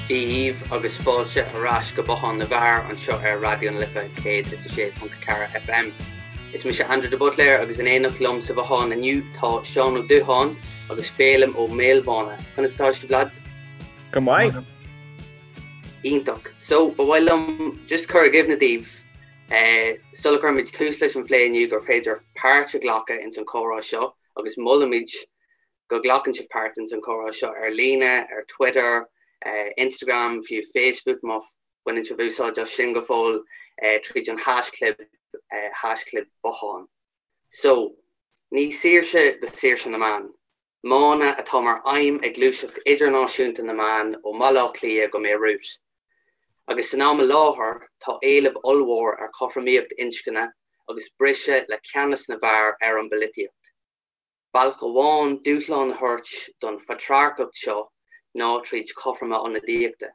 Dia dhaoibh agus fáilte ar ais go Bothán na bhFear anseo ar Raidió na Life 106.4 FM. Is mise Andrew de Buitléar agus in éineacht liom sa bhothán inniu tá Seán Ó Dúcháin agus Féilim Ó Maolmhána. Conas atá sibh lads? Go maith. Iontach. So, ba mhaith liom just cur i gcuimhne daoibh sula gcuirimid tús leis an phlé inniu gur féidir páirt a ghlacadh ins an chomhrá seo agus molaimid go nglacann sibh páirt ins an chomhrá seo ar líne, ar Twitter, Instagram, fiú Facebook má bhaineann sibh úsáid as sin go fóill, tríd an haischlib, haischlib bothán. So, ní saoirse go saoirse na mban. Mana atá mar aidhm ag gluaiseacht idirnáisiúnta na mban ó mBaile Átha Cliath go mBeirut. Agus san am i láthair tá éileamh ollmhór ar chothromaíocht inscne agus briseadh le ceannas na bhfear ar an bpolaitíocht. Bealach amháin dúshlán a thabhairt don phatrarcacht seo ná tríd cothroime ionadaíochta,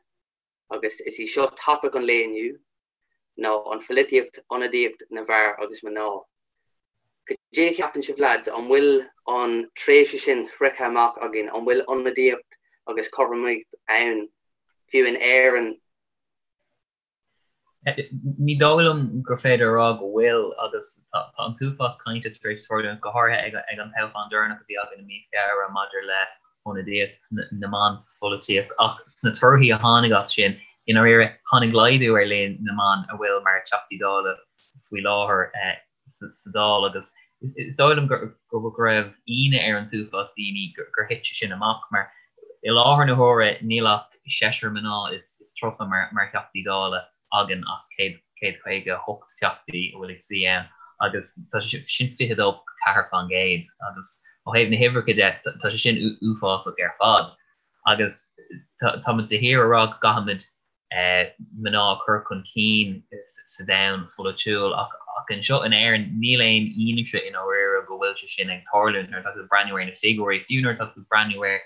agus is í seo topaic an lae inniu, ná an pholaitíocht, ionadaíocht na bhfear agus mná. Cad é a cheapann sibh lads, an bhfuil an tréimhse sin sroichte amach againn, an bhfuil ionadaíocht agus cothromaíocht ann, fiú in Éirinn? Ní dóigh liom gur féidir a rá go bhfuil agus tá an t-uafás cainte tar éis tarlú, go háirithe ag an toghchán deireanach a bhí againn i mí Feabhra maidir le hionadaíocht na mban sa pholaitíocht. Ach sna torthaí a tháinig as sin, i ndáiríre, tháinig laghdú ar líon na mban a bhfuil mar Teachtaí Dála faoi láthair. sa Dáil agus is dóigh liom go raibh ionadh ar an t-uafás daoine gur thit sé sin amach mar i láthair na huaire níl ach seisear mná is 30 mar Theachtaí Dála againn as 158 Teachtaí a bhfuil ag suí ann agus tá sé sin 22.4% agus ó thaobh na huimhreacha de tá sé sin uafásach ar fad agus táimid de shíor ag rá go gcaithfimid mná a chur chun cinn sa domhan pholaitiúil ach anseo in Éirinn níl aon fhianaise i ndáiríre go bhfuil sé sin ag tarlú nuair atá tú ag breathnú ar na figiúirí, fiú nuair atá tú ag breathnú ar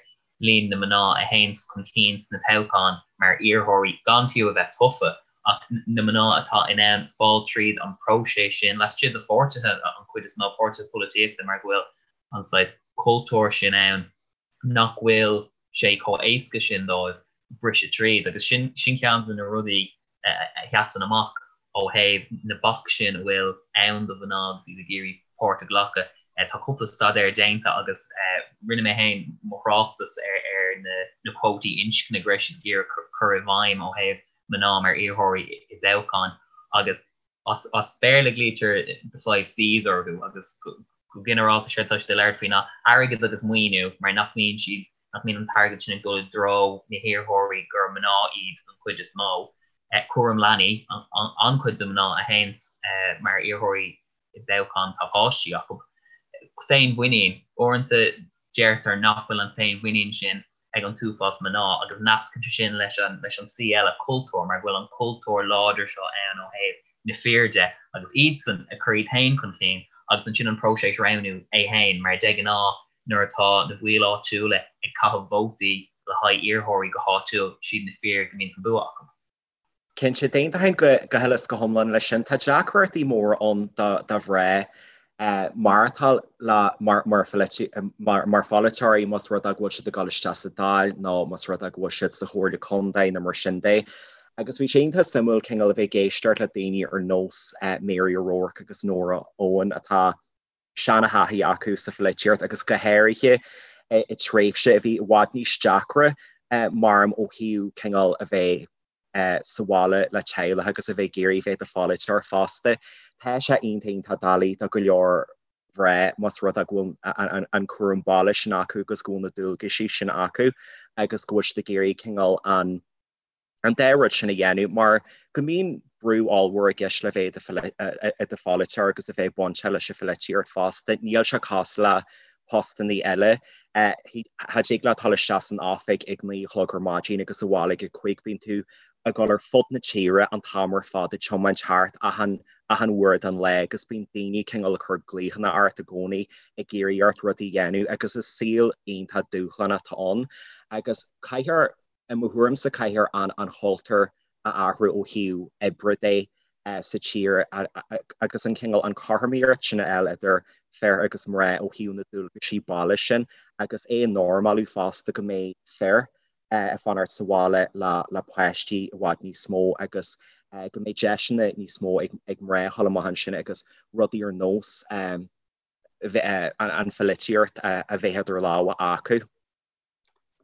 líon na mná a théanns chun cinn sna toghcháin mar iarrthóirí gan fiú a bheith tofa ach na mná atá in ann fáil tríd an próiseas sin laistigh de pháirtithe, an chuid is mó páirtithe polaitíochta mar go bhfuil an saghas cultúr sin ann. nach bhfuil sé chomh éasca sin dóibh briseadh tríd agus sin sin ceann de na rudaí a sheasann amach ó thaobh na bac sin a bhfuil ann do mhná agus iad ag iarraidh páirt a ghlacadh. Tá cúpla staidéar déanta agus rinne mé féin mo thráchtas ar ar na na cuótaí inscne go raibh siad ag iarraidh cur i bhfeidhm ó thaobh mná mar iarrthóirí i dtoghcháin agus As Béarla glaoitear the five Cs orthu agus go ginearálta séard atá siad ag labhairt faoi ná airgead agus maoiniú mar nach mbíonn siad, nach mbíonn an t-airgead sin ag dul i dtreo na hiarrthóirí gur mná iad don chuid is mó. Cúram leanaí, an-chuid de mná a théanns mar iarrthóirí i dtoghcháin tá páistí acu. Féinmhuinín, uaireanta deirtear nach bhfuil an féinmhuinín sin ag an t-uafás mná agus nascann sé sin leis an leis an C eile, cultúr, mar go bhfuil an cultúr láidir seo ann ó thaobh na fir de agus iadsan ag cur iad féin chun cinn agus ansin an próiseas roghnú é féin mar de ghnáth nuair atá na baill áitiúla ag caitheamh vótaí le haghaidh iarrthóirí go háitiúil, siad na fir go mbíonn an bua acu. Cinnte, d'aontóinn go huile is go hiomlán leis sin. Tá deacrachtaí móra ann do mhná maireachtáil mar pholaiteoirí más rud é go bhfuil siad ag dul isteach sa Dáil nó más rud é go bhfuil siad sa Chomhairle Contae nó mar sin de. Agus bhí sé iontach suimiúil cineál a bheith ag éisteacht le daoine ar nós Mary O'Rourke agus Nóra Eoin atá seana-thaithí acu sa pholaitíocht agus go háirithe i tréimhse a bhí i bhfad níos deacra maram ó thaobh cineál a bheith sa bhaile le teaghlach agus a bheith ag iarraidh bheith i do pholaiteoir fosta. Tá sé iontach iontach doiligh do go leor mná más rud é go bhfuil an cúram baile sin acu agus go bhfuil na dualgaisí sin acu agus go bhfuil siad ag iarraidh cineál an an dá rud sin a dhéanamh mar go mbíonn brú ollmhór i gceist le bheith i do pholaiteoir agus a bheith bainteach leis an pholaitíocht fosta. Níl sé cosúil le postannaí eile. Cha dtig leat dul isteach san oifig ag 9 a chlog ar maidin agus abhaile ag 5. Bíonn tú ag dul ar fud na tíre an t-am ar fad ag tiomáint thart achan achan uair den lá agus bíonn daoine cineál ag cur glaochanna ort i gcónaí ag iarraidh ort rudaí a dhéanamh agus is saol iontach dúshlánach atá ann agus caithfear I mo thuairimse caithfear an chultúr a athrú ó thaobh oibre de sa tír agus an cineál, an chothromaíocht sin a fháil idir fir agus mná ó thaobh na dualgaisí baile sin agus é a normalú fosta go mbeidh fir. ag fanacht sa bhaile le páistí i bhfad níos mó agus go mbeidh deiseanna níos mó ag mná a dhul amach ansin agus rudaí ar nós an pholaitíocht a bheith idir lámha acu.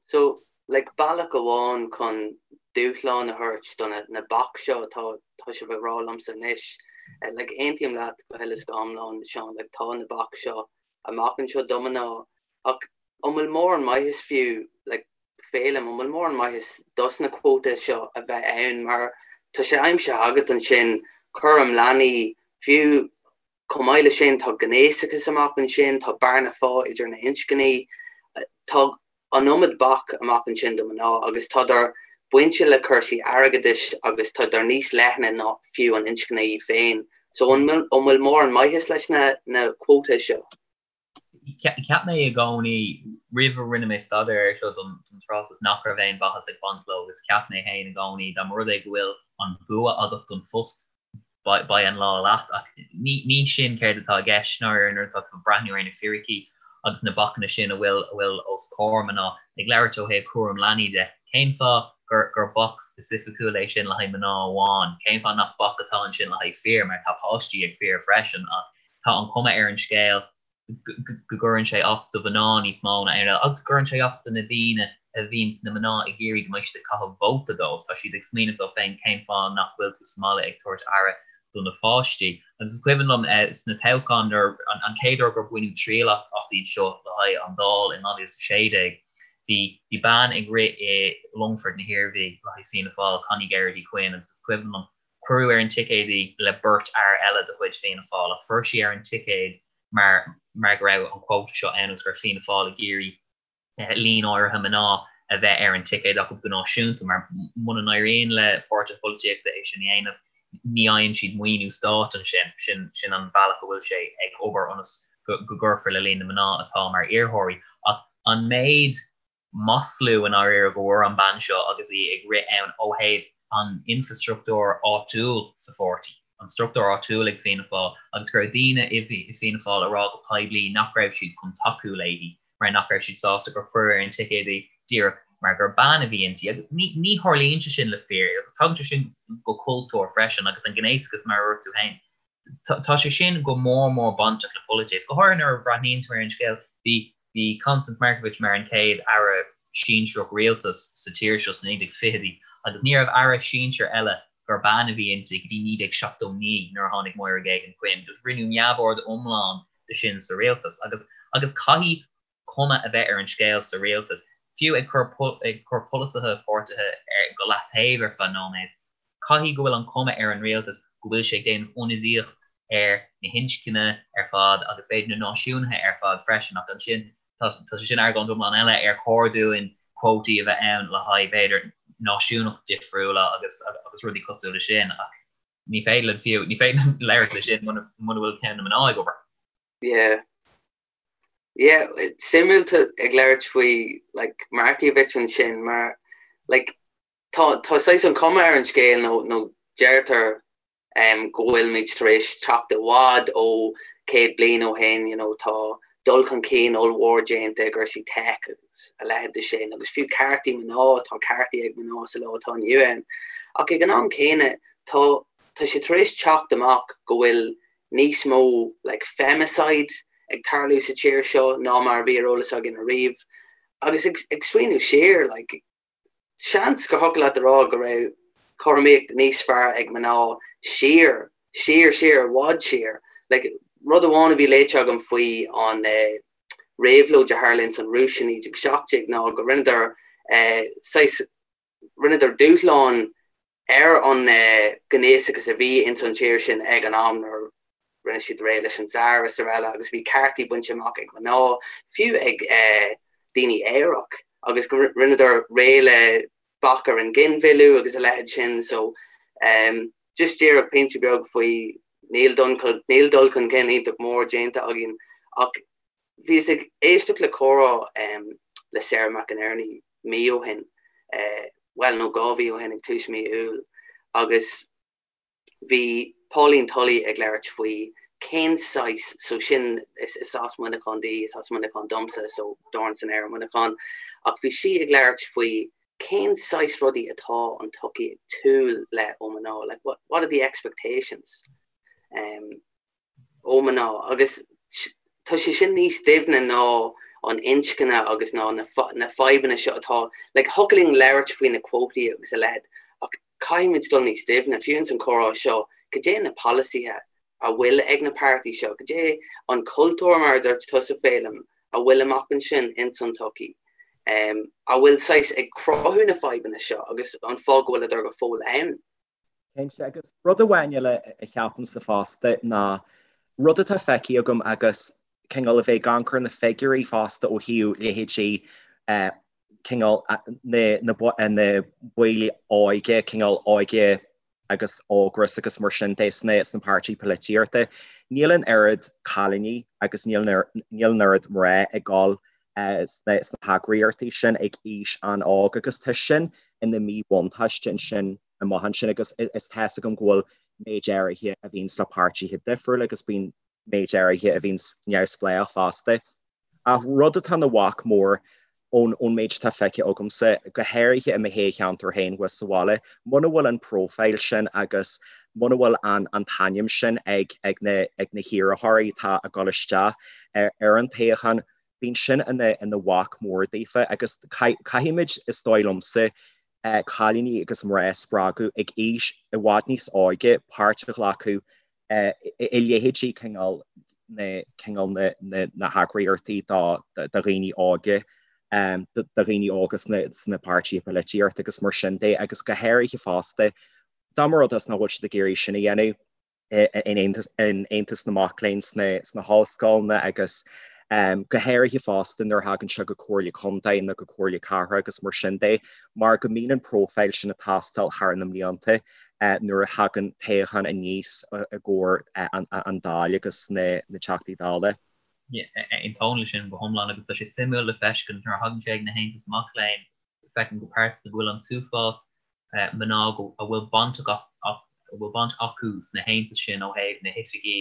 So, like, bealach amháin chun dúshlán a thabhairt do na baic seo atá tá sibh ag rá liomsa anois, like, aontaím leat go huile is go hiomlán, Seán, like, tá na baic seo amach anseo do mná ach an bhfuil mórán maitheas fiú, like, Féilim, an bhfuil mórán maitheas dos na cuótaí seo a bheith ann mar tá sé aimsithe agat ansin, cúram leanaí, fiú Chomh maith leis sin, tá gnéasachas amach ansin, tá bearna phá idir na hinscní, tá an iomad bac amach ansin do mhná agus tádar bainte le cúrsaí airgeadais agus tádar níos leithne ná fiú an inscne í féin. So an bhfuil mórán maitheas leis na cuótaí seo? Cheap mé i gcónaí, roimh a rinne mé staidéar air seo don tráchtas, nach raibh aon mhaitheas ag baint leo agus cheap mé féin i gcónaí dá mba rud é go bhfuil an bua agat don phost, beidh an lá leat. Ach ní sin céard atá i gceist ndáiríre nuair atá tú ag breathnú ar na fíricí agus na bacanna sin a bhfuil a bhfuil os comhair mná. Ag labhairt ó thaobh cúram leanaí de, cén fáth gur gur bac specificúil é sin le haghaidh mná amháin? Cén fáth nach bac atá ansin le haghaidh fir, mar tá páistí ag fir freisin ach Tá an chuma ar an scéal go gcuireann sé as do mhná níos mó ná aon rud eile agus go gcuireann sé as do na daoine a bhíonn sna mná ag iarraidh go mbeidh siad ag caitheamh vóta dóibh. Tá siad ag smaoineamh dóibh féin cén fáth nach bhfuil tú sa mbaile ag tabhairt aire do na páistí. Agus is cuimhin liom sna toghcháin nuair an chéad uair gur baineadh triail as iad seo le haghaidh an Dáil in 2016, bhí bhí bean ag rith i Longfort na hIarmhí le haghaidh Fianna Fáil, Connie Geraghty Quinn, agus is cuimhin liom Cuireadh ar an ticéad í le beirt fhear eile de chuid Fianna Fáil ach fuair sí ar an ticéad mar mar go raibh an quota seo ann agus go raibh Fianna Fáil ag iarraidh líon áirithe mná a bheith ar an ticéad acu go náisiúnta mar muna n-éiríonn le páirtithe polaitíochta é sin a dhéanamh ní fhaigheann siad maoiniú stáit ansin. Sin sin an bealach a bhfuil sé ag obair ionas go go gcuirfear le líon na mná atá mar iarrthóirí. Ach an méid maslú i ndáiríre go bhfuair an bean seo agus í ag rith ann ó thaobh an infreastruchtúr áitiúil sa pháirtí, an struchtúr áitiúil ag Fianna Fáil agus go raibh daoine i Fianna Fáil ag rá go poiblí nach raibh siad chun tacú léi mar nach raibh siad sásta gur cuireadh ar an ticéad í díreach mar gur bean a bhí inti. Agus ní ní tharlaíonn sé sin le fir agus tagann sé sin go cultúr freisin agus an gnéasachas mar a dúirt tú féin. Tá sé sin go mór mór bainteach le polaitíocht, go háirithe nuair a bhreathnaíonn tú ar an scéal. Bhí bhí Constance Markievicz mar an chéad aire sinsearach rialtais sa tír seo sna 1920idí agus ní raibh aire sinsir eile gur bean a bhí inti go dtí 1979 nuair a tháinig Máire Geoghegan Quinn. Just rinneadh neamhaird iomlán de sin sa rialtas agus agus caithfidh cuma a bheith ar an scéal sa rialtas, fiú ag cur ag cur polasaithe páirtithe ar go leataobh ar feadh nóiméad. Caithfidh go bhfuil an chuma ar an rialtas go bhfuil sé ag déanamh ionadaíocht ar na hinscne ar fad agus b'fhéidir na náisiúnaithe ar fad freisin ach ansin tá tá sé sin argóint iomlán eile ar chóir dúinn quótaí a bheith ann le haghaidh b'fhéidir náisiúnacht difriúla agus agus rudaí cosúil le sin ach ní féidir linn fiú ní féidir linn labhairt le sin muna muna bhfuil ceann na mná ag obair. Yeah. Yeah, suimiúil tú ag labhairt faoi like Markievicz ansin mar like Tá tá saghas an chuma ar an scéal nó nó deirtear go bhfuilimid tar éis teacht i bhfad ó 100 bliain ó shin, you know, tá dul chun cinn ollmhór déanta i gcúrsaí tech agus a leithéid de sin agus fiú ceartaí mná, tá ceartaí ag mná sa lá atá inniu ann. Ach ag an am céanna tá tá sé tar éis teacht amach go bhfuil níos mó like femicide ag tarlú sa tír seo ná mar a bhí ar eolas againn ariamh. Agus ag ag smaoineamh siar like Seans gur thiocfadh leat a rá go raibh cothromaíocht níos fearr ag mná siar, siar, siar, i bhfad siar. Like, rud amháin a bhí léite agam faoi an réabhlóid a tharla ins an Rúis i 1917 ná go rinneadar saghas, rinneadar dúshlán ar an ghnéasachas a bhí ins an tír sin ag an am nuair a rinne siad réidh leis an Tsar is araile agus bhí ceartaí bainte amach ag mná, fiú ag daoine aerach agus go rinneadar réidh le bac ar an ghinmhilleadh agus a leithéid sin so just díreach pointe beag faoi níl níl dul chun cinn iontach mór déanta againn ach Bhíos ag éisteacht le comhrá le Sarah McInerney mí ó shin, bhuel, nó 2 mhí ó shin, ag tús mí Iúil, agus bhí Pauline Tully ag labhairt faoi cén saghas, so sin, is as Muineachán di, is as Muineachán domsa, so dorn san aer i Muineachán, ach bhí sí ag labhairt faoi. Cén saghas rudaí atá an tsochaí ag súil le ó mná? Like, what, what are the expectations um, ó mná? Agus tá sé sin níos doimhne ná an inscne agus ná na, na fadhbanna seo atá, like, thiocfadh linn labhairt faoi na cuótaí agus a leithéid, ach caithfimid dul níos doimhne, fiú ins an chomhrá seo, cad é na polasaithe a bhfuil ag na páirtí seo, cad é an cultúr, mar a dúirt tusa, Féilim, a bhfuil amach ansin ins an tsochaí, a bhfuil saghas ag cruthú na fadhbanna seo agus an fáth go bhfuileadar go fóill ann. Cinnte, agus rud amháin eile a cheapaimse fosta ná rud atá feicthe agam agus cineál a bheith ag amharc ar na figiúirí fosta ó thaobh leithéidí cineál na baill óige, cineál óige agus Ógras agus mar sin de sna páirtithe polaitíochta. Níl an oiread cailíní agus níl an oiread mná ag dul sna heagraíochtaí sin ag aois an-óg agus tá sin ina mhíbhuntáiste ansin amach ansin agus is tá 'fhios agam go bhfuil méid áirithe a bhíonns le páirtithe difriúla agus bíonn méid áirithe a bhíonns neamhspleách fosta. Ach rud atá ina bhac mór ón méid atá feicthe agamsa, go háirithe i mo thoghcheantar féin thuas sa bhaile, muna bhfuil an profile sin agus muna bhfuil an t-ainm sin ag na hiarrthóirí atá ag dul isteach ar an toghchán, bíonn sin ina bhac mór daofa agus caithfimid, is dóigh liomsa, cailíní agus mná a spreagadh ag aois i bhfad níos óige páirt a ghlacadh i leithéidí cineál na cineál na na heagraíochtaí do dhaoine óga, do dhaoine óga sna páirtithe polaitíochta agus mar sin de agus go háirithe fosta dá mba rud é nach bhfuil siad ag iarraidh sin a dhéanamh in Aontas na Mac Léinn sna hollscoileanna agus go háirithe fosta nuair a thagann sé go Comhairle Contae nó go Comhairle Cathrach agus mar sin de mar go mbíonn an profile sin ag teastáil thar na mblianta nuair a thagann toghchán aníos i gcomhair an Dáil agus na Teachtaí Dála. Aontaím leis sin go hiomlán agus tá sé suimiúil le feiscint nuair a thagann sé ag na haontais mac léinn, feicim go pearsanta go bhfuil an t-uafás mná a bhfuil baint a bhfuil baint acu sna haontais sin ó thaobh na hoifigí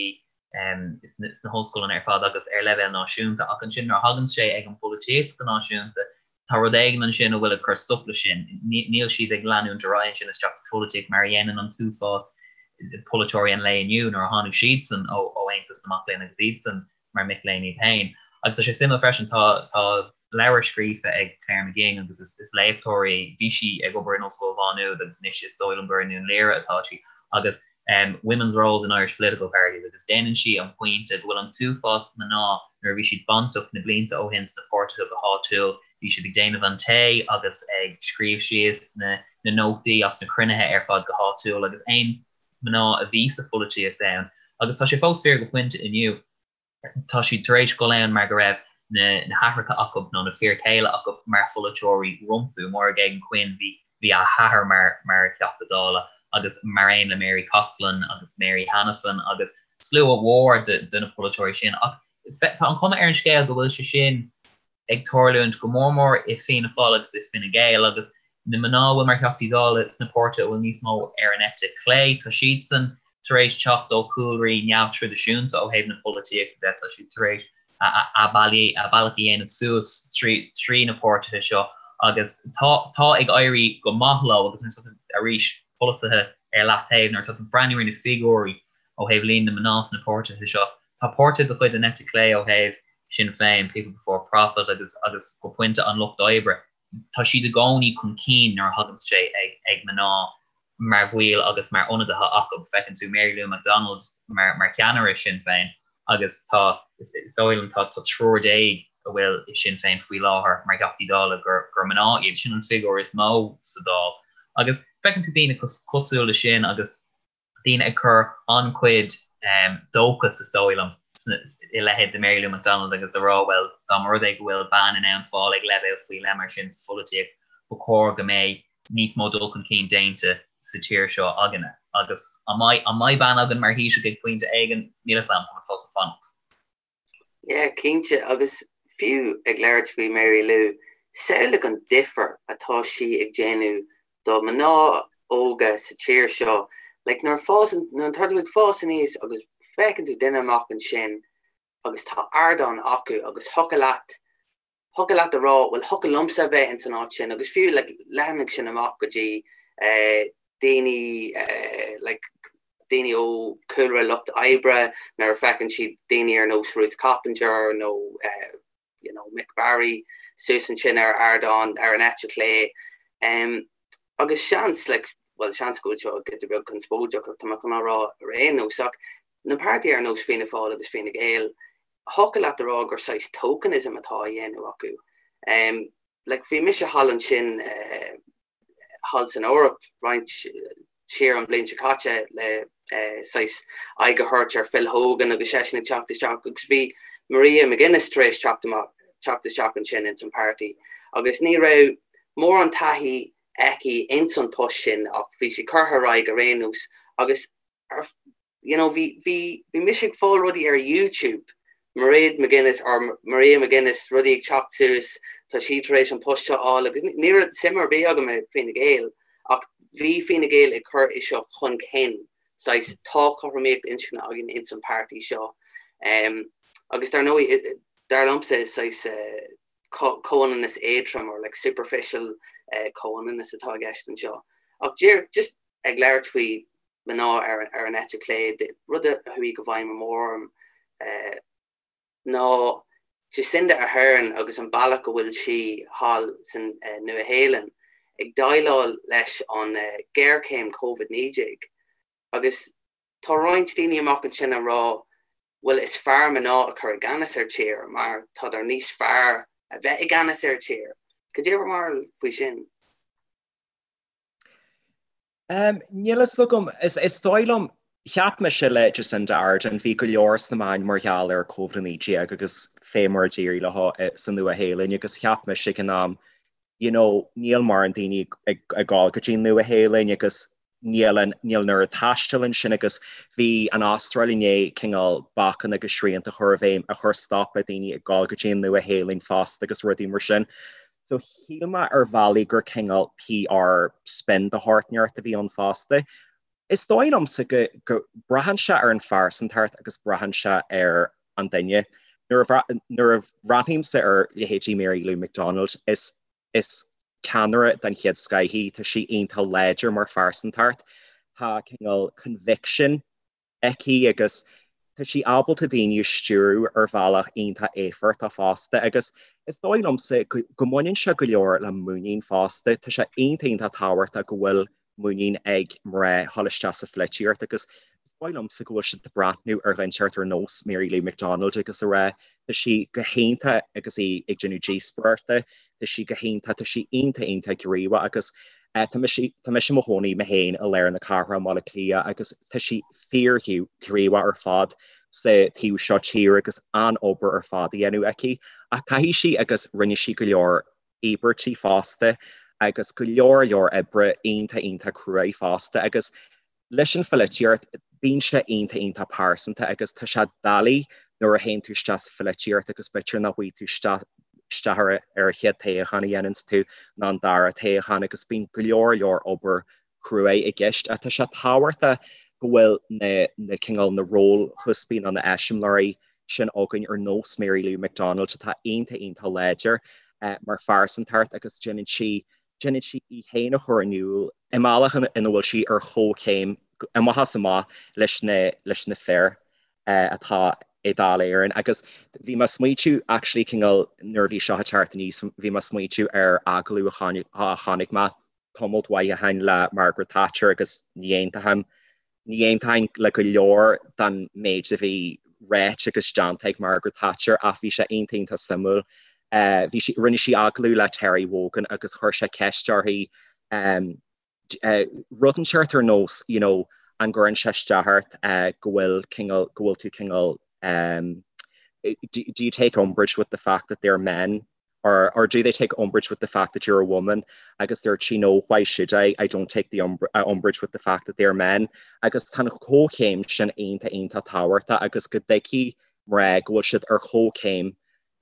sna hollscoileanna ar fad agus ar leibhéal náisiúnta ach ansin nuair a thagann sé ag an bpolaitíocht go náisiúnta Tá rud éigin ansin a bhfuil ag cur stop leis sin. Níl siad ag leanúint ar aghaidh ansin isteach sa pholaitíocht mar a dhéanann an t-uafás polaiteoirí an lae inniu nuair a tháinig siadsan ó Aontas na Mac Léinn agus iadsan mar mic léinn iad féin. Agus tá sé suimiúil freisin, tá tá leabhar scríofa ag Claire McGing agus is is léachtóir í, bhí sí ag obair in Ollscoil Mhá Nuad agus anois is dóigh liom gur i nDún Laoghaire atá sí agus Women's Roles in Irish Political Parties agus déanann sí an pointe go bhfuil an t-uafás mná nuair a bhí siad bainteach na blianta ó shin sna páirtithe go háitiúil, bhí siad ag déanamh an tae agus ag scríobh síos na nótaí as na cruinnithe ar fad go háitiúil agus aon mná a bhí sa pholaitíocht ann agus tá sé fós fíor go pointe inniu. tá siad tar éis dul ann mar go raibh na haithreacha acu nó na fir chéile acu mar pholaiteoirí rompu. Máire Geoghegan Quinn, bhí bhí a hathair mar mar Theachta Dála agus mar aon le Mary Coughlan agus Mary Hanafin agus slua mhór de de na polaiteoirí sin. Ach tá an chuma ar an scéal go bhfuil sé sin ag tarlúint go mór mór i Fianna Fáil agus i Fine Gael agus na mná a bhfuil mar Theachtaí Dála sna páirtithe a bhfuil níos mó ar an eite chlé, tá siadsan tar éis teacht ó chúlraí neamhthraidisiúnta ó thaobh na polaitíochta de, tá siad tar éis a bealach a dhéanamh suas trí na páirtithe seo agus tá tá ag éirí go maith leo agus nuair atá tú, arís, polasaithe ar leataobh, nuair atá tú ag breathnú ar na figiúirí ó thaobh líon na mná sna páirtithe seo, tá páirtithe de chuid an eite chlé ó thaobh Sinn Féin, People Before Profit agus agus go pointe an Lucht Oibre, tá siad i gcónaí chun cinn nuair a thagann sé ag ag mná mar bhaill agus mar ionadaithe acu. Feiceann tú Mary Lou McDonald mar mar cheannaire Sinn Féin agus tá, is dóigh liom, tá tá triúr déag a bhfuil i Sinn Féin faoi láthair mar Theachtaí Dála gur gur mná iad. Sin an figiúr is mó sa Dáil. Agus feiceann tú daoine cosúil le sin agus daoine ag cur an-chuid dóchas, is dóigh liom, i leithéid de Mary Lou McDonald agus a rá, bhuel, dá mba rud é go bhfuil bean in ann fáil ag leibhéal faoi leith mar sin sa pholaitíocht, ba chóir go mbeidh níos mó dul chun cinn déanta sa tír seo againne. Agus an mbeidh, an mbeidh bean againn mar Thaoiseach ag pointe éigin? Níl a fhios agam, táimid fós ag fanacht. Yeah, cinnte, agus fiú ag labhairt faoi Mary Lou, samhlaigh an difear atá sí ag déanamh do mná óga sa tír seo. Like, nuair a fásann, nuair atá tú ag fás aníos agus feiceann tú duine amach ansin agus tá ardán acu agus thiocfadh leat. Thiocfadh leat a rá, bhuel, thiocfadh liomsa a bheith ins an áit sin agus fiú like leathnaigh sin amach go dtí daoine like daoine ó chúlra lucht oibre nuair a feiceann siad daoine ar nós Ruth Coppinger nó you know Mick Barry suas ansin ar ardán ar an eite chlé. Agus seans like bhuel seans go bhfuil seo giota beag conspóideach ach tá mé chun á rá ar aon nós ach na páirtithe ar nós Fianna Fáil agus Fine Gael thiocfadh leat a rá gur saghas tokenism atá á dhéanamh acu. Like bhí mise thall ansin thall san Eoraip roinnt siar an bhliain seo caite le saghas aghaidh a thabhairt ar Phil Hogan agus seisean ag teacht isteach agus bhí Mairead McGuinness tar éis teacht amach teacht isteach ansin ins an páirtí agus ní raibh mórán taithí aici ins an post sin ach bhí sí curtha ar aghaidh ar aon nós agus you know, bhí, bhí, bhí mise ag fáil rudaí ar YouTube, Mairead McGuinness or Maria McGuinness, rudaí ag teacht suas, tá sí tar éis an post seo a fháil agus ní raibh suim ar bith agam i Fine Gael ach bhí Fine Gael ag cur é seo chun cinn, saghas tá cothromaíocht inscne againn ins an páirtí seo. Um, agus dar ndóigh, dar liomsa is saghas uh, comhionannas éadrom or like superficial uh, comhionannas atá i gceist anseo. Ach díreach just ag labhairt faoi mná ar an eite chlé, rud a chuaigh i bhfeidhm go mór orm ná Jacinda Ardern agus an bealach go bhfuil sí thall san Nua-Shéalainn ag déileáil leis an ghéarchéim Covid-19. Agus tá roinnt daoine amach ansin ag rá bhuel is fearr mná a chur i gceannas ar tír mar tádar níos fearr a bheith i gceannas ar tír. Cad é bhur mbarúil faoi sin? Níl a fhios agam. Is dóigh liom, cheap mise le Jacinda Ardern, bhí go leor sna meáin mar gheall ar Covid-19 agus fé mar a d'éirigh leo sa Nua-Shéalainn agus cheap mise ag an am, you know, níl mórán daoine ag gabháil go dtí an Nua-Shéalainn agus níl an, níl an oiread taistil ansin agus bhí an Astráil i ndiaidh cineál bacanna agus srianta a chur i bhfeidhm a chuir stop le daoine ag gabháil go dtí an Nua-Shéalainn fosta agus rudaí mar sin. So shíl mé ar bhealaí gur cineál PR spin de shórt inteacht a bhí ann fosta. Is dóigh liomsa go, go braitheann sé ar an phearsantacht agus braitheann sé ar an duine. Nuair a, nuair a bhreathnaímse ar leithéidí Mary Lou McDonald, is, is ceannaire den chéad scoith í, tá sí iontach láidir mar phearsantacht, tá cineál conviction aici agus tá sí ábalta daoine a stiúradh ar bhealach iontach éifeachtach fosta agus is dóigh liomsa go mbaineann sé go leor le muinín fosta. Tá sé iontach iontach tábhachtach go bhfuil muinín ag mná dhul isteach sa pholaitíocht agus is dóigh liomsa go bhfuil siad ag breathnú ar dhuine inteacht ar nós Mary Lou McDonald agus a rá tá sí go hiontach agus í ag déanamh díospóireachta, tá sí go hiontach, tá sí iontach iontach gníomhach agus Tá mise i mo chónaí mé féin i lár na cathrach i mBaile Átha Cliath agus tá sí fíorghníomhach ar fad sa taobh seo tíre agus an-obair ar fad á dhéanamh aici. Ach caithfidh sí agus rinne sí go leor íobairtí fosta agus go leor leor oibre iontach iontach cruaidh fosta agus Leis an pholaitíocht, bíonn sé iontach iontach pearsanta agus tá sé doiligh nuair a théann tú isteach sa pholaitíocht agus b'fhéidir nach bhfaighidh tú isteach ar an chéad toghchán a dhéananns tú ná an dara toghchán agus bíonn go leor leor obair chruaidh i gceist. Ach tá sé tábhachtach go bhfuil na na cineál na rólchuspaí nó na eiseamláirí sin againn ar nós Mary Lou McDonald atá iontach iontach láidir mar phearsantacht agus déanann sí Déanann sí í féin a chur in iúl i mbealach ina bhfuil sí ar chomhchéim amach is amach leis na leis na fir atá i Dáil Éireann. Agus bhí mé ag smaointiú actually cineál nuair a bhí seo ag teacht aníos, bhí mé ag smaointiú ar agallamh a chonaic mé tamalt mhaith ó shin le Margaret Thatcher agus ní aontaím Ní aontaím le go leor den méid a bhí ráite agus déanta ag Margaret Thatcher ach bhí sé iontach iontach suimiúil. Bhí sí, rinne sí agallamh le Terry Wogan agus chuir sé ceist uirthi rud inteacht ar nós you know an gcuireann sé isteach ort go bhfuil cineál, go bhfuil tú cineál do you take umbrage with the fact that they're men? or or do they take umbrage with the fact that you're a woman agus dúirt sí no why should I I don't take the uh, umbrage with the fact that they're men agus tá an chomhchéim sin iontach iontach tábhachtach agus go dtuigfidh mná go bhfuil siad ar chomhchéim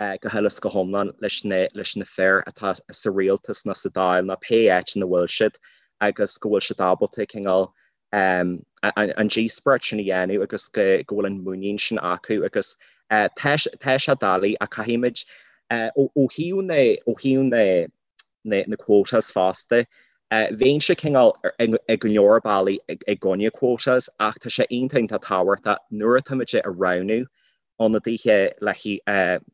uh, go huile is go hiomlán leis na leis na fir atá sa rialtas nó sa Dáil nó pé áit ina bhfuil siad agus go bhfuil siad ábalta cineál an díospóireacht sin a dhéanamh agus go bhfuil an muinín sin acu agus tá sé doiligh ach caithfimid. Ó thaobh na, ó thaobh na, na, na quotas fosta, bheinnse cineál i go leor bealaí i gcoinne quotas ach tá sé iontach iontach tábhachtach nuair atáimid ag roghnú ionadaithe le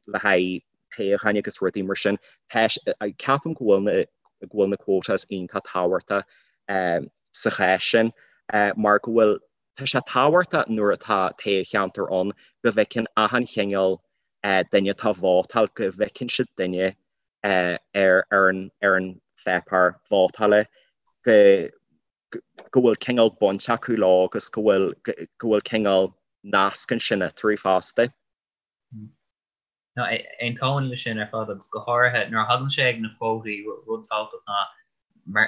le haghaidh toghcháin agus rudaí mar sin, ceapaim go bhfuil na go bhfuil na quotas iontach tábhachtach sa chás sin mar go bhfuil tá sé tábhachtach nuair atá toghcheantar ann go bhfeiceann achan chineál duine atá ag vótáil, go bhfeiceann siad duine ar ar an ar an pháipéar vótála go go bhfuil cineál baint acu leo agus go bhfuil go bhfuil cineál nasc ansin eatarthu fosta. No, aontaím leis sin ar fad agus go háirithe nuair a thagann sé ag na quótaí, rud tábhachtach ná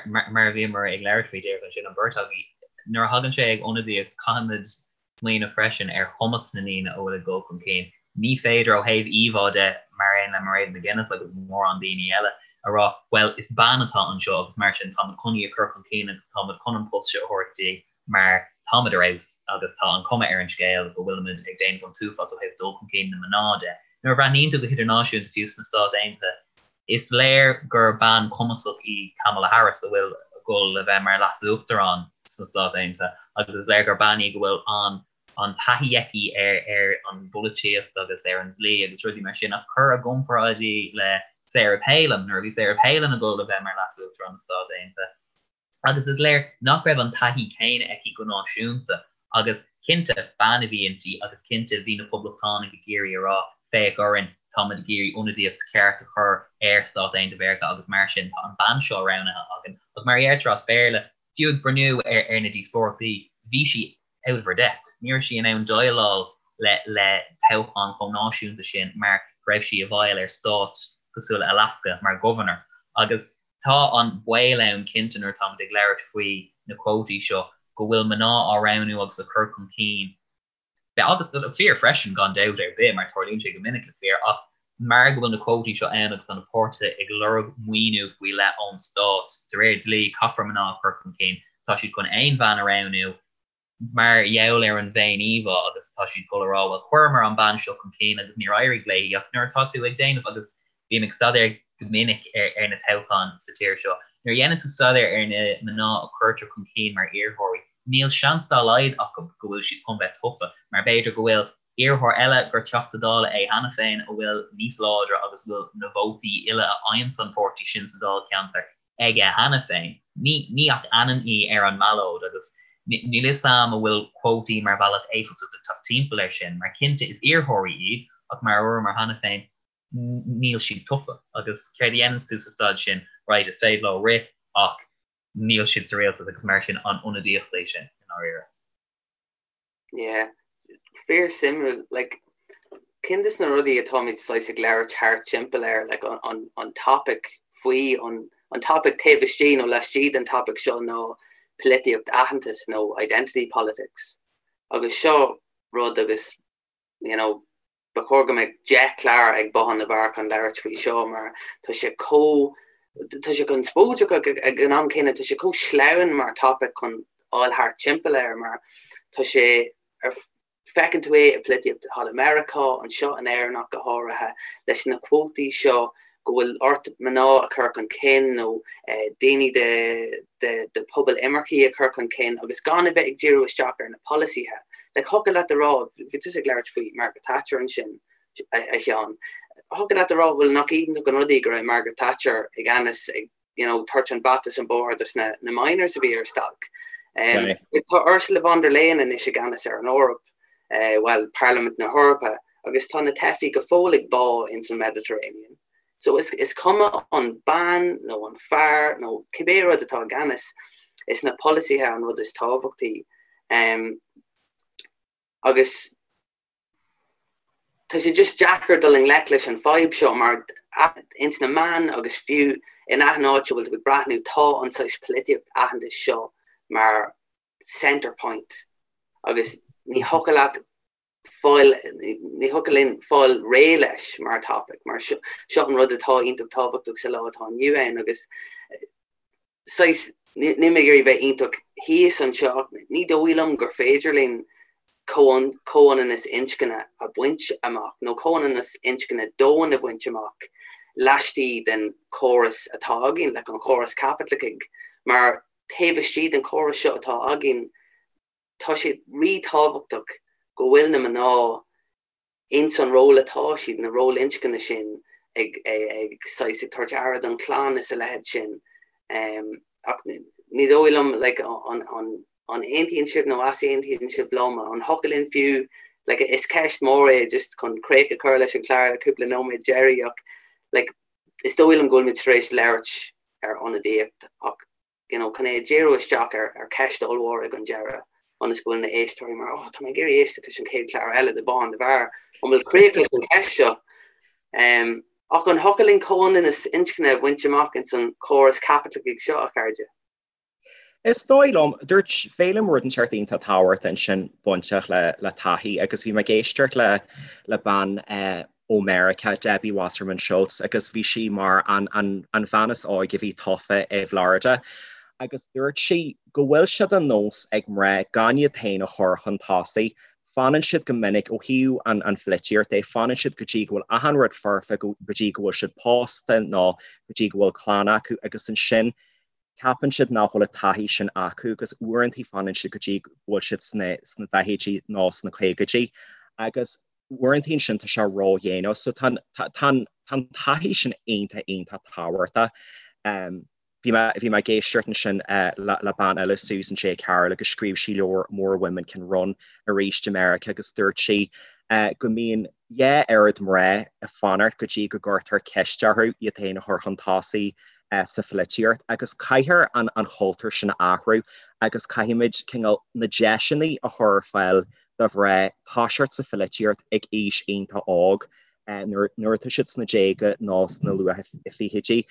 mar a bhíomar ag labhairt faoi díreach ansin, an bheirt agaibh, nuair a thagann sé ag ionadaíocht caithfimid smaoineamh freisin ar chumas na ndaoine a bhfuil ag dul chun cinn. Ní féidir ó thaobh íomhá de, mar aon le Mairead McGuinness agus mórán daoine eile, a rá, bhuel, is bean atá anseo agus mar sin táimid chun í a chur chun cinn agus táimid chun an post seo a thabhairt di mar táimid ar fheabhas agus tá an chuma ar an scéal go bhfuilimid ag déanamh an t-uafás ó thaobh dul chun cinn na mná de. Nuair a bhreathnaíonn tú go hidirnáisiúnta, fiú sna Stáit Aontaithe, Is léir gur bean cumasach í Kamala Harris a bhfuil ag dul le bheith mar Leas-Uachtarán sna Stáit Aontaithe agus is léir gur bean í go bhfuil an an taithí aici ar ar an bpolaitíocht agus ar an dlí agus rudaí mar sin ach cuir i gcomparáid í le Sarah Palin nuair a bhí Sarah Palin ag dul le bheith mar Leas-Uachtarán na Stát Aontaithe. Agus is léir nach raibh an taithí céanna aici go náisiúnta. Agus cinnte, bean a bhí inti agus cinnte bhí na Poblachtánaigh ag iarraidh a rá, féach orainn, táimid ag iarraidh ionadaíocht cheart a chur ar Stáit Aontaithe Mheiriceá agus mar sin tá an bean seo roghnaithe againn. Ach mar a deirtear as Béarla, fiú ag breathnú ar na díospóireachtaí, bhí sí out of her depth. Ní raibh sí in ann déileáil le le toghchán chomh náisiúnta sin mar go raibh sí i bhfeighil ar stát cosúil le Alaska mar governor. Agus Tá an baol ann cinnte nuair atáimid ag labhairt faoi na cuótaí seo go bhfuil mná á roghnú agus á cur chun cinn, agus fir freisin gan dabht ar bith mar tarlaíonn sé go minic le fir, ach mar go bhfuil na cuótaí seo ann agus tá na páirtithe ag lorg maoiniú faoi leith ón stát, de réir dlí caithfear mná a chur chun cinn, tá siad chun aon bhean a roghnú. mar gheall ar an bhféin-íomhá agus tá siad ag dul a rá bhuel chuireamar an bean seo chun cinn agus níor éirigh léi ach nuair atá tú ag déanamh agus bím ag staidéar go minic ar ar na toghcháin sa tír seo nuair a dhéanann tú staidéar ar na mná a cuirtear chun cinn mar iarrthóirí níl seans dá laghad acu go bhfuil siad chun bheith tofa mar b'fhéidir go bhfuil iarrthóir eile gur Teachta Dála é cheana féin a bhfuil níos láidre agus a bhfuil na vótaí uile a fhaigheanns an páirtí sin sa dáilcheantar aige cheana féin. Ní ach ainm í ar an mballóid agus níl fhios a'm an bhfuil cuótaí mar bhealach éifeachtach le teacht timpeall air sin, mar cinnte is iarrthóirí iad ach mar a dúramar cheana féin níl siad tofa agus céard a dhéananns tú sa staid sin, right, is féidir leo rith ach níl siad sa rialtas agus mar sin an ionadaíocht é sin i ndáiríre? Yeah. Fíor suimiúil, like, cinn des na rudaí atáimid saghas ag labhairt thart timpeall air, like, an, an, an topic faoi, an, an topic taobh istigh nó laistigh den topic seo ná polaitíocht aitheantais nó identity politics. Agus seo rud agus, you know, Ba chóir go mbeadh 10 clár ag Bothán na bhFear chun labhairt faoi seo mar tá sé chomh, tá sé conspóideach ach ag an am céanna tá sé chomh sleamhain mar topic chun fháil thart timpeall air mar tá sé ar, feiceann tú é i polaitíocht thall i Meiriceá, anseo in Éirinn ach go háirithe, leis na cuótaí seo go bhfuil ort mná a chur chun cinn nó daoine de phobal imircigh a chur chun cinn agus gan a bheith ag díriú isteach ar na polasaithe. Like, thiocfadh leat a rá, bhí tusa ag labhairt faoi Margaret Thatcher ansin, a Sheáin, thiocfadh leat a rá, bhuel, nach iontach an rud é go raibh Margaret Thatcher i gceannas ag, you know, tabhairt an bata is an bóthar dos na miners a bhí ar stailc. Tá Ursula von der Leyen anois i gceannas ar an Eoraip, bhuel, Parlaimint na hEorpa, agus tá na teifigh go fóill ag bá ins an Mediterranean. So is, is cuma an bean nó an fear nó cibé rud atá i gceannas, is na polasaithe an rud is tábhachtaí. Um, agus tá sé just deacair dul i ngleic leis an fadhb seo mar ins na meáin agus fiú in achan áit a bhfuil tú ag breathnú tá an saghas polaitíocht aitheantais seo mar centre point agus ní thiocfadh leat fáil, ní thiocfadh linn fáil réidh leis mar topic mar seo seo an rud atá iontach tábhachtach sa lá atá inniu ann agus saghas, níl mé ag iarraidh bheith iontach thíos anseo ach ní dóigh liom gur féidir linn. comhionannas inscne a bhaint amach, nó comhionannas inscne domhain a bhaint amach laistigh den chóras atá againn, like an chóras caipitleachach, mar taobh istigh den chóras seo atá againn, tá sé rí-tábhachtach go bhfuil na mná ins an ról atá siad, na ról inscne sin, ag ag saghas ag tabhairt aire don chlann is a leithéid sin. Ach ní dóigh liom like an an an aontaíonn sibh nó easaontaíonn sibh liom, an thiocfadh linn fiú like is ceist mór é just chun críoch a chur leis an chlár le cúpla nóiméad deiridh ach like is dóigh liom go bhfuil muid tar éis labhairt ar ionadaíocht ach you know, chun é a dhíriú isteach ar, ar cheist ollmhór ag an deireadh, ionas go bhfuil na éisteoirí mar, oh, tá mé ag iarraidh éisteacht leis an chéad chlár eile de Bothán na bhFear, an bhfuil críoch leis an cheist seo? Um, ach an thiocfadh linn comhionannas inscne a bhaint amach ins an chóras caipitleachach seo, a chairde? Is dóigh liom, dúirt Féilim rud inteacht iontach tábhachtach ansin bainteach le, le taithí agus bhí mé ag éisteacht le, le bean eh, ó Meiriceá, Debbie Wasserman Schultz, agus bhí sí mar an an bhean is óige a bhí tofa i bhFlorida agus dúirt sí go bhfuil sé de nós ag mná gan iad féin a chur chun tosaigh. Fanann siad go minic, ó thaobh an an pholaitíocht de, fanann siad go dtí go bhfuil achan rud foirfe, go dtí go bhfuil siad pósta nó go dtí go bhfuil clann acu agus ansin ceapann siad nach bhfuil an taithí sin acu agus uaireanta fanann siad go dtí go bhfuil siad sna sna daichidí nó sna caogaidí agus uaireanta ansin tá sé ródhéanach so tá an taithí sin iontach iontach tábhachtach. Bhí mé bhí mé ag éisteacht ansin le bean eile Susan J. Carroll agus scríobh sí leabhar More Women Can Run arís i Meiriceá agus dúirt sí go mbíonn dhá oiread mná ag fanacht go dtí go gcuirtear ceist orthu iad féin a chur chun tosaigh sa pholaitíocht agus caithfear an an chultúr sin a athrú agus caithfimid cineál na deiseanna a chur ar fáil do mhná toiseacht sa pholaitíocht ag aois iontach óg, nuair atá siad sna déaga nó sna luath fichidí.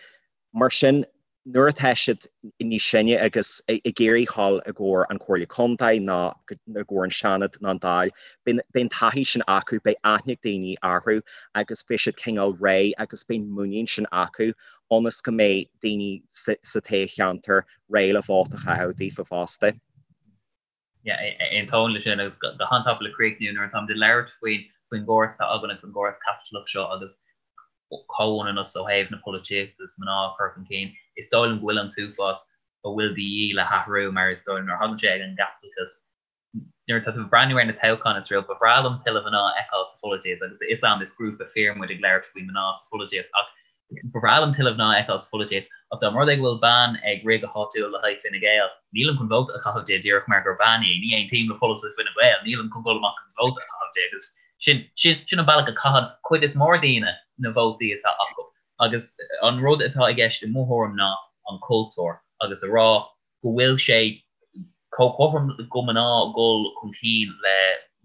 Mar sin, nuair atá siad níos sine agus ag iarraidh dhul i gcomhair an Chomhairle Contae nó i gcomhair an Seanad nó an Dáil, beidh an taithí sin acu, beidh aithne ag daoine orthu agus beidh siad cineál réidh agus beidh an muinín sin acu ionas go mbeidh daoine sa toghcheantar réidh le vóta a chaitheamh daofa fosta. Aontaím leis sin agus go han-tapa le críochnú nuair atáimid ag labhairt faoin faoin gcóras atá againn agus an gcóras caipitleach seo agus comhionannas ó thaobh na polaitíochta is mná a chur chun cinn, is dóigh liom go bhfuil an t-uafás a bhfuil de dhíth le hathrú mar is dóigh liom nuair a thagann sé ag an gcaipitleachas nuair atá tú ag breathnú ar na toghcháin is rud ba bhreá liom tuilleadh mná a fheiceáil sa pholaitíocht agus is am is grúpa fir muid ag labhairt faoi mná sa pholaitíocht ach Ba bhreá liom tuilleadh mná a fheiceáil sa pholaitíocht, ach dá mba rud é go bhfuil bean ag rith go háitiúil le haghaidh Fine Gael, nílim chun vóta a chaitheamh di díreach mar gur bean í, ní aontaím le polasaithe Fine Gael, nílim chun dul amach agus vóta a chaitheamh di agus sin, sin, sin an bealach a chaitheann cuid is mór daoine na vótaí atá acu. Agus an rud atá i gceist i mo thuairim ná an cultúr agus a rá go bhfuil sé chomh cothrom do mhná dhul chun cinn le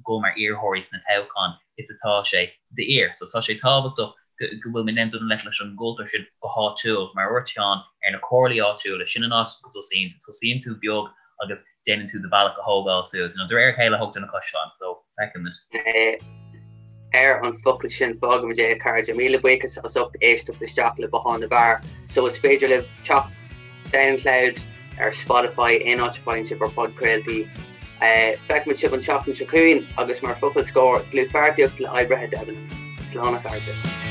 dhul mar iarrthóirí sna toghcháin is atá sé d'fhir. So tá sé tábhachtach go bhfuil muid in ann dul i ngleic leis an gcultúr sin go háitiúil, mar a dúirt Seán, ar na comhairlí áitiúla, sin an áit go dtosaíonn tú. Tosaíonn tú beag agus déanann tú do bhealach a thógáil suas. You know, de réir a chéile a thógtar na caisleáin, so feicfimid. Ar an focal sin fágaimid é a chairde. Míle buíochas as ucht éisteacht isteach le Bothán na bhFear. So is féidir libh teacht Soundcloud, ar Spotify, aon áit a bhfaigheann sibh bhur bpodchraoltaí. Feicfimid sibh an tseachtain seo chugainn agus mar focal scóir, dlúthpháirtíocht le oibrithe Debenhams. Slán a chairde.